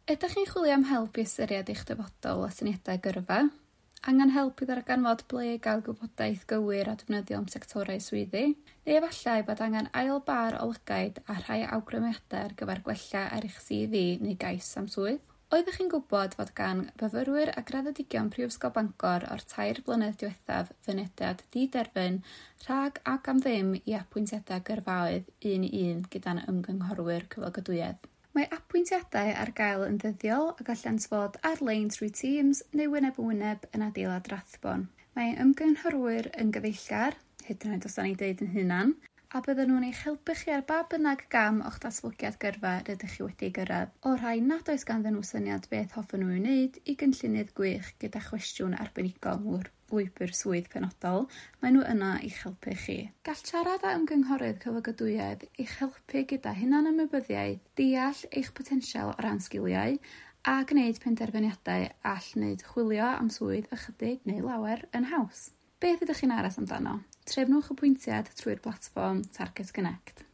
Ydych chi'n chwilio am help i ystyried eich dyfodol a syniadau gyrfa? Angen help i ddarganfod ble i gael gwybodaeth gywir a defnyddiol am sectorau swyddi? Neu efallai bod angen ail bâr o lygaid a rhai awgrymiadau ar gyfer gwella ar eich CV neu gais am swydd? Oeddech chi'n gwybod fod gan fyfyrwyr a graddedigion Prifysgol Bangor o'r 3 blynedd diwethaf fynediad diderfyn rhag ac am ddim i apwyntiadau gyrfaoedd un i un gyda'n ymgynghorwyr cyflogadwyedd? Mae apwyntiadau ar gael yn ddyddiol a gallant fod ar-lein trwy Teams neu wyneb yn wyneb yn adeilad Rathbone. Mae ymgynghorwyr yn gyfeillgar, hyd yn oed os 'dan ni'n deud yn hunan, a bydden nhw'n eich helpu chi ar ba bynnag gam o'ch datblygiad gyrfa rydych chi wedi gyrraedd, o'r rhai nad oes ganddyn nhw syniad beth hoffen nhw ei wneud i gynllunydd gwych gyda chwestiwn arbenigol lwybr swydd penodol, maen nhw yno i'ch helpu chi. Gall siarad â ymgynghorydd cyflogadwyedd eich helpu gyda hunanymwybyddiaeth, deall eich potensial o ran sgiliau, a gwneud penderfyniadau all wneud chwilio am swydd ychydig neu lawer yn haws. Beth ydych chi'n aros amdano? Trefnwch apwyntiad trwy'r platfform Target Connect.